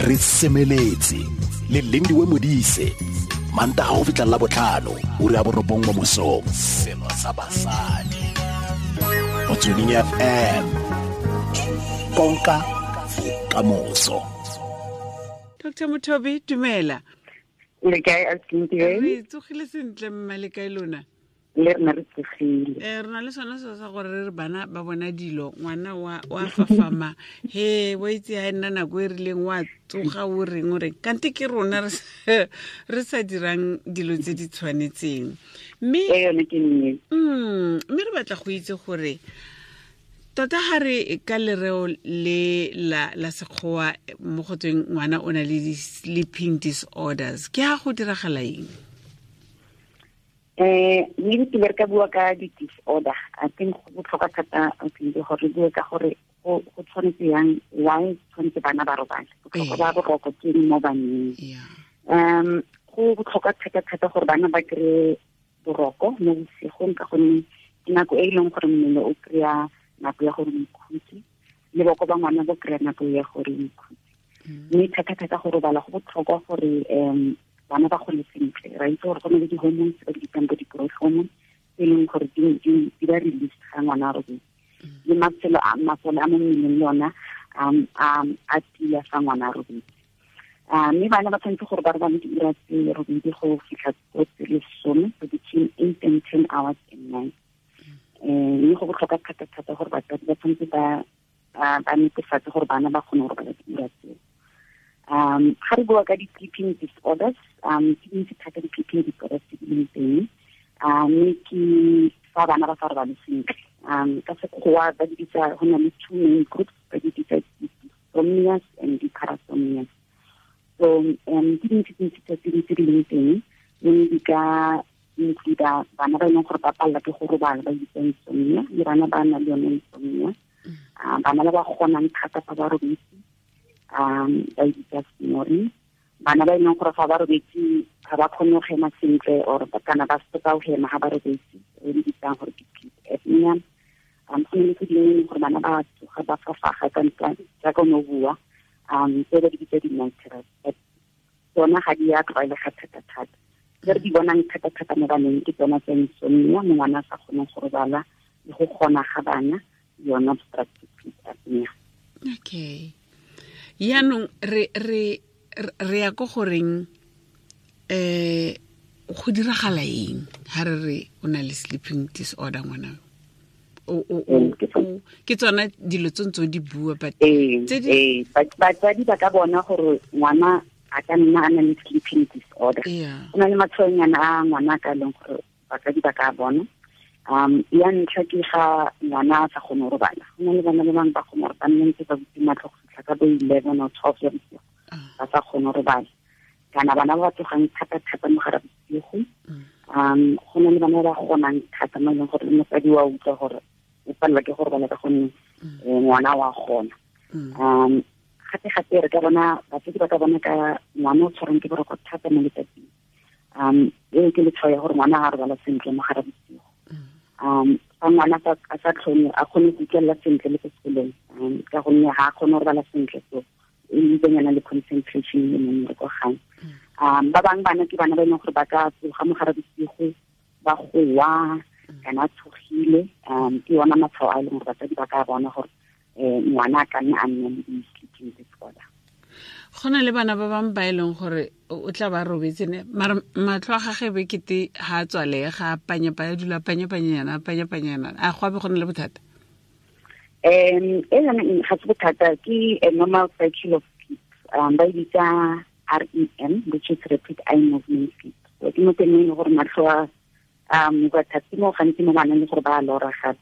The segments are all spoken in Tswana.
Re semeletse le Lindiwe Modise, Mantaga go fitlha la botlhano, ura ya 9 mo mosong. Selo sa basadi. Motsweding FM. Konka bokamoso. Dr. Mothobi, dumela. Le kae, Ausi? Re tsogile sentle, mma, le kae lona? Le rena re tsogile. Re na le sone seo sa gore re re bana ba bona dilo, ngwana wa fafama, he wa itse ha e nna nako e rileng wa tsoga o reng o reng, kante ke rona re sa dirang dilo tse di tshwanetseng. Ee, yone ke nnete. Mme re batla go itse gore tota ga re ka lereo le la sekgowa mo go tsweng ngwana o na le di-sleeping disorders, ke ha go diragala eng? Maybe ke re ka bua ka di-disorder. I think go botlhokwa thata, I think, gore re bue ka gore go tshwanetse yang, why tshwanetse bana ba robale. Botlhokwa ba boroko ke eng mo baneng? Go botlhokwa thata-thata gore bana ba kry-e boroko mo bosigong, ka gonne ke nako e e leng gore mmele o kry-a nako ya gore o ikhutse, le boko ba ngwana bo kry-a nako ya gore o ikhutse. Mme thata-thata go robala go botlhokwa gore bana ba gole sentle. Ra itse gore go na le di-hormones tse ba di bitsang bo di-growth hormones, tse e leng gore di ba release ga ngwana a robetse. Le masole a mo mmeleng le ona, a tia fa ngwana a robetse. Mme bana ba tshwanetse gore ba robale diura tse robedi go fitlha ko tse lesome, so between 8 and 10 hours a night. Mme go botlhokwa thata-thata gore batsadi ba tshwanetse ba netefatse gore bana ba kgone go robala diura tseo. Ga re bua ka di-sleeping disorders, ke dintsi thata di-sleeping disorders tse di leng teng. Mme ke fa bana ba sa robale sentle. Ka sekgowa ba di bitsa, go na le two main groups, ba di bitsa di-dysomnias and di-parasomnias. So, ke dintsi dintsi tse di tse di leng teng, mme di ka include bana ba e leng gore ba palelwa ke go robala, ba bitsa insomnia, le bana ba nang le yone insomnia. Bana ba ba kgonang thata fa ba robetse, ba e bitsa snoring. Bana ba e leng gore fa ba robetse ga ba kgone go hema sentle, or ba kana ba stop-a go hema ga ba robetse, re di bitsang gore ke sleep apnea. Go na le tse dingwe e leng gore bana ba tsoga ba fafaga ka ntwa, jaaka o ne o bua, tse ba di bitsa di-night terrors, but tsona ga di a tlwaelega thata-thata. Tse re di bonang thata-thata mo baneng ke tsona tsa insomnia, mo ngwana a sa kgoneng go robala, le go kgona ga bana, yona obstructive sleep apnea. Okay. Yaanong re ya ko goreng, go diragala eng ha re re o na le sleeping disorder ngwana? Ke tsona dilo tse ntse o di bua, but tse di Batsadi ba ka bona gore ngwana a ka nna a na le sleeping disorder. Go na le matshwaonyana a ngwana a ka leng gore batsadi ba ka bona. Ya ntlha ke ga ngwana a sa kgone go robala. Go na le bana ba bangwe ba kgone gore ba nne ntse ba butse matlho go fitlha ka bo 11 or 12 ya bosigo, ba sa kgone go robala. Kana bana ba ba tsogang thata-thata mo gare ga bosigo. Go na le bana ba ba kgonang thata mo e leng gore le mosadi wa utlwa gore o palelwa ke go robala ka gonne, ngwana wa kgona. Gape-gape re ka bona, batsadi ba ka bona ka ngwana o tshwarwang ke boroko thata mo letsatsing. Eo ke letshwao ya gore ngwana ga a robala sentle mo gare ga bosigo. Fa ngwana a sa tlhone, a kgone go utlwelela sentle le ko sekolong, ka gonne ga a kgone go robala sentle, so e ntsenyana le concentration le mo mmereko gae. Ba bangwe bana ke bana ba e leng gore ba ka tsoga mo gare bosigo, ba goa, kana a tshogile. Ke yona matshwao a e leng gore batsadi ba ka bona gore, ngwana a ka nna a nna le di-sleeping disorder. Go na le bana ba bangwe ba e leng gore o tla ba robetse ne, mara matlho a gagwe be kete ha a tswalega, a panya-panya, a dula a panya-panyana, a panya-panyana. A go a be go na le bothata? E yone ga se bothata, ke a normal cycle of sleep. Ba e bitsa REM, which is rapid eye movement sleep. So ke mo teng e leng gore matlho a, ba thata mo gantsi mo baneng le gore ba a lora gape.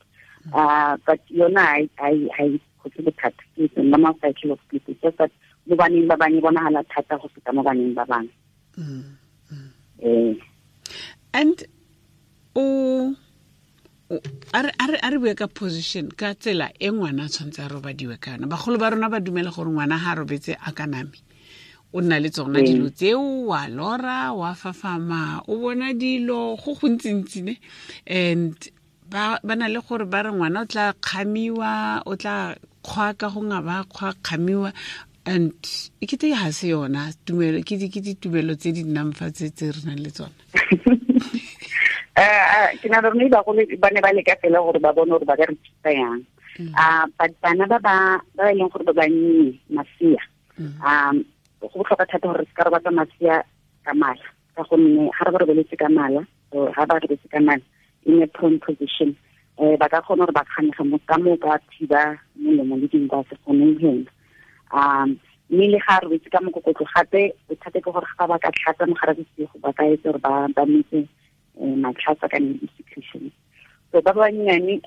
But yona ha e kgotse bothata. Ke a normal cycle of sleep. It's just that mo baneng ba bangwe e bonagala thata go feta mo baneng ba bangwe. And o, o, a re, a re, a re bue ka position, ka tsela e ngwana a tshwanetse a robadiwe ka yona. Bagolo ba rona ba dumela gore ngwana ha a robetse a ka name, o nna le tsona dilo tseo, wa lora, wa fafama, o bona dilo go gontsi-ntsi ne. And ba na le gore ba re ngwana o tla kgamiwa, o tla kgwa ka go nga ba kgwa kgamiwa. And e kete ga se yona tumelo, ke ditumelo tse di nnang fa tse re nang le tsona. Ke na le bagolo ba ne ba leka fela gore ba bone gore ba ka re thusa yang. But bana ba ba e leng gore ba bannye, masea, go botlhokwa thata gore se ka robatsa masea ka mala, ka gonne ga re ba robeletse ka mala, ga ba robetse ka mala in a prone position, ba ka kgona gore ba kganege mo ka mo ka thiba molomo le dinko a se kgone go hema. Mme le ga robetse ka mokokotlo gape, bothata ke gore ga ba ka tlhatsa mogare bosigo, ba ka etsa gore ba metse matlhatsa ka di-secretions. So ba bannyane,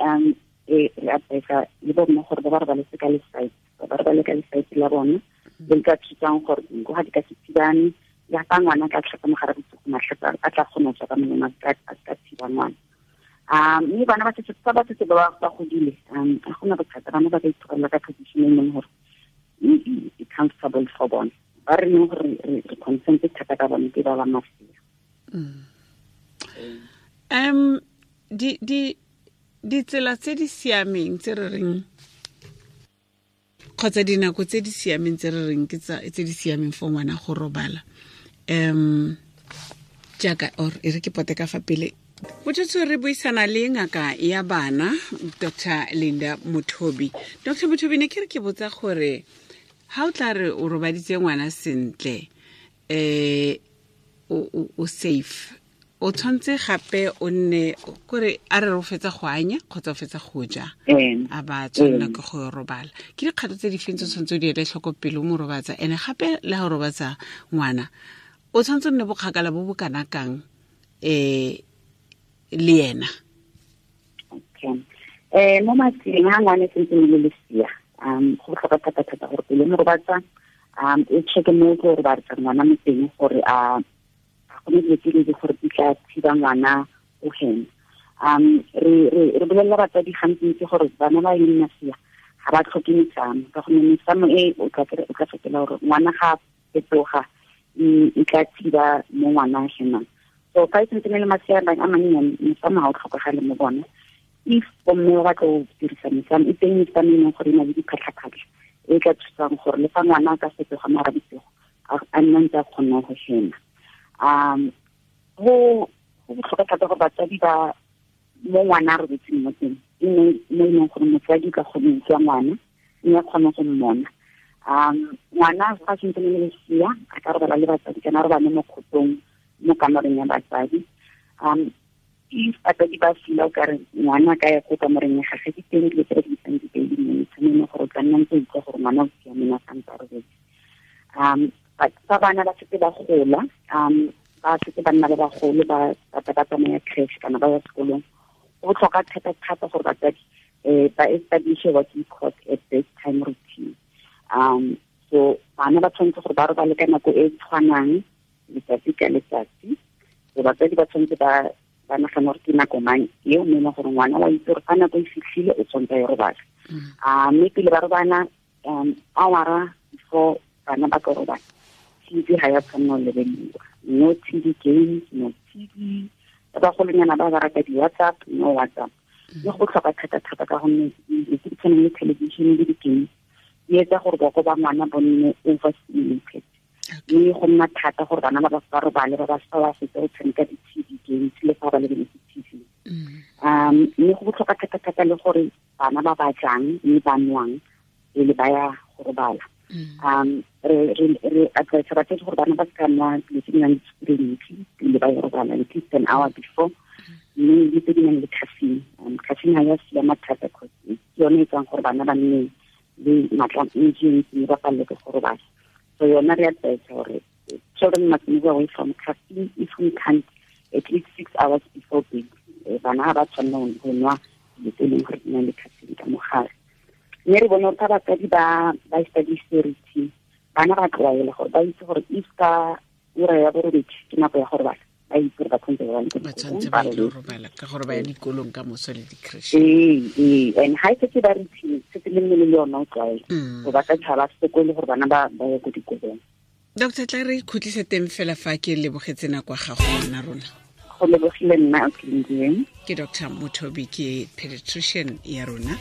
re advisa le bomme gore ba ba robaletse ka lesite, ba ba robale ka lesite la bona, le ka thusang gore dinko ga di ka se thibane, le fa ngwana ka tlhatsa mogare bosigo, matlhatsa a tla kgona go tswa ka molomo, a ka thiba ngwana. Mme bana ba setse ba setse ba ba godile, ga gona bothata, bana ba ka itholela ka position e leng gore e comfortable for bona. Ba re leng gore re concerned thata ka bone ke ba ba masea. Ditsela tse di siameng tse re reng, kgotsa dinako tse di siameng tse re reng ke tse di siameng for ngwana go robala, jaaka or e re ke pote ka fa pele. Botsotso re buisana le ngaka ya bana, Dr. Linda Mothobi. Dr. Mothobi, ne ke re ke botsa gore ha o tla re o robaditse ngwana sentle, o safe, o tshwanetse gape o nne kore a re o fetsa go anya kgotsa o fetsa go ja, a ba tshwanela ke go robala. Ke dikgato tse di feng tse tshwanetse o di ele tlhoko pele o mo robatsa? Ene gape le ha o robatsa ngwana, o tshwanetse o nne bokgakala bo bo kana kang le ena? Okay. Mo matsing ha ngwana e sentse le lesea, go botlhokwa thata-thata gore pele mo robatsa, o check-e mo o robatsa ngwana mo teng gore a go ne dilo tse di gore di tla thiba ngwana o hema. Re bolelela batsadi gantsi gore bana ba e leng masea ga ba tlhoke mesamo, ka gonne mesamo e o tla fetola gore ngwana ga fetoga e tla thiba mo ngwana a hemang. So fa e sentse le masea a mannyane, mesamo ga o tlhokagale mo bona. If bomme ba batla go dirisa mesamo, e teng mesamo e leng gore e na le diphatlha-phatlha e tla thusang gore le fa ngwana a ka fetoga mara bosigo, a nna ntse a kgone go hema. Go botlhokwa thata gore batsadi ba mo ngwana a robetseng mo teng, e nne mo e leng gore motsadi ka kgone go utlwa ngwana, mme a kgone go mmona. Ngwana fa a sentse le lesea, a ka robala le batsadi kana a robale mo kgotong mo kamoreng ya batsadi. If batsadi ba feel o kare ngwana a ka ya ko kamoreng ya gagwe, di teng dilo tse re di bitsang di-baby monitor, mo e leng gore o tla nna ntse o utlwa gore ngwana o siame a santse a robetse. But fa bana ba setse ba gola, ba setse ba nna ba bagolo, ba ba tsamaya creche kana ba ya sekolong, go botlhokwa thata-thata gore batsadi ba establish what we call a bedtime routine. So bana ba tshwanetse gore ba robale ka nako e tshwanang letsatsi ka letsatsi. So batsadi ba tshwanetse ba nagana gore ke nako mang eo, mme e leng gore ngwana wa itse gore fa nako e fitlhile o tshwanetse a ye robala. Mme pele ba robala, hour before bana ba ka robala, TV ga ya tshwanela go lebelediwa. No TV games, no TV. Ba bagolonyana ba ba rata di-WhatsApp, no WhatsApp. Mme go botlhokwa thata-thata ka gonne dilo tse di tshwanang le television le di-games di etsa gore boko ba ngwana bo nne overstimulated. Mme go nna thata gore bana ba ba robale, ba ba sa ba fetsa go tshameka di-TV games le fa ba lebeletse TV. Mme go botlhokwa thata-thata le gore bana ba ba jang mme ba nwang pele ba ya go robala. Re advise batsadi gore bana ba se ka nwa dilo tse di nang le sukiri e ntsi pele ba ya robala, at least an hour before, mme le tse di nang le caffeine. Caffeine ga ya siama thata, cause ke yone e etsang gore bana ba nne le matla a ntsi mme ba palelwe ke go robala. So yona re advise gore children must move away from caffeine if we can't at least 6 hours before bed. Bana ga ba tshwanela go nwa dilo tse e leng gore di na le caffeine ka mogare. Mme re bone gore fa batsadi ba establish routine, bana ba tlwaela gore ba itse gore if ka ura ya borobedi ke nako ya go robala, ba itse gore ba tshwanetse ba ba tshwanetse ba ile robala ka gore ba ya dikolong ka moso le di-creche. Ee, and ha e setse ba routine, setse le mmele le yona o tlwaela. So ba ka tshaba sekolo gore bana ba ye ko dikolong. Doctor, tla re khutlise teng fela fa ke lebogetse nako ya gago ngwana rona. Go lebogile nna, Lindiwe. Ke Dr. Mothobi, ke pediatrician ya rona.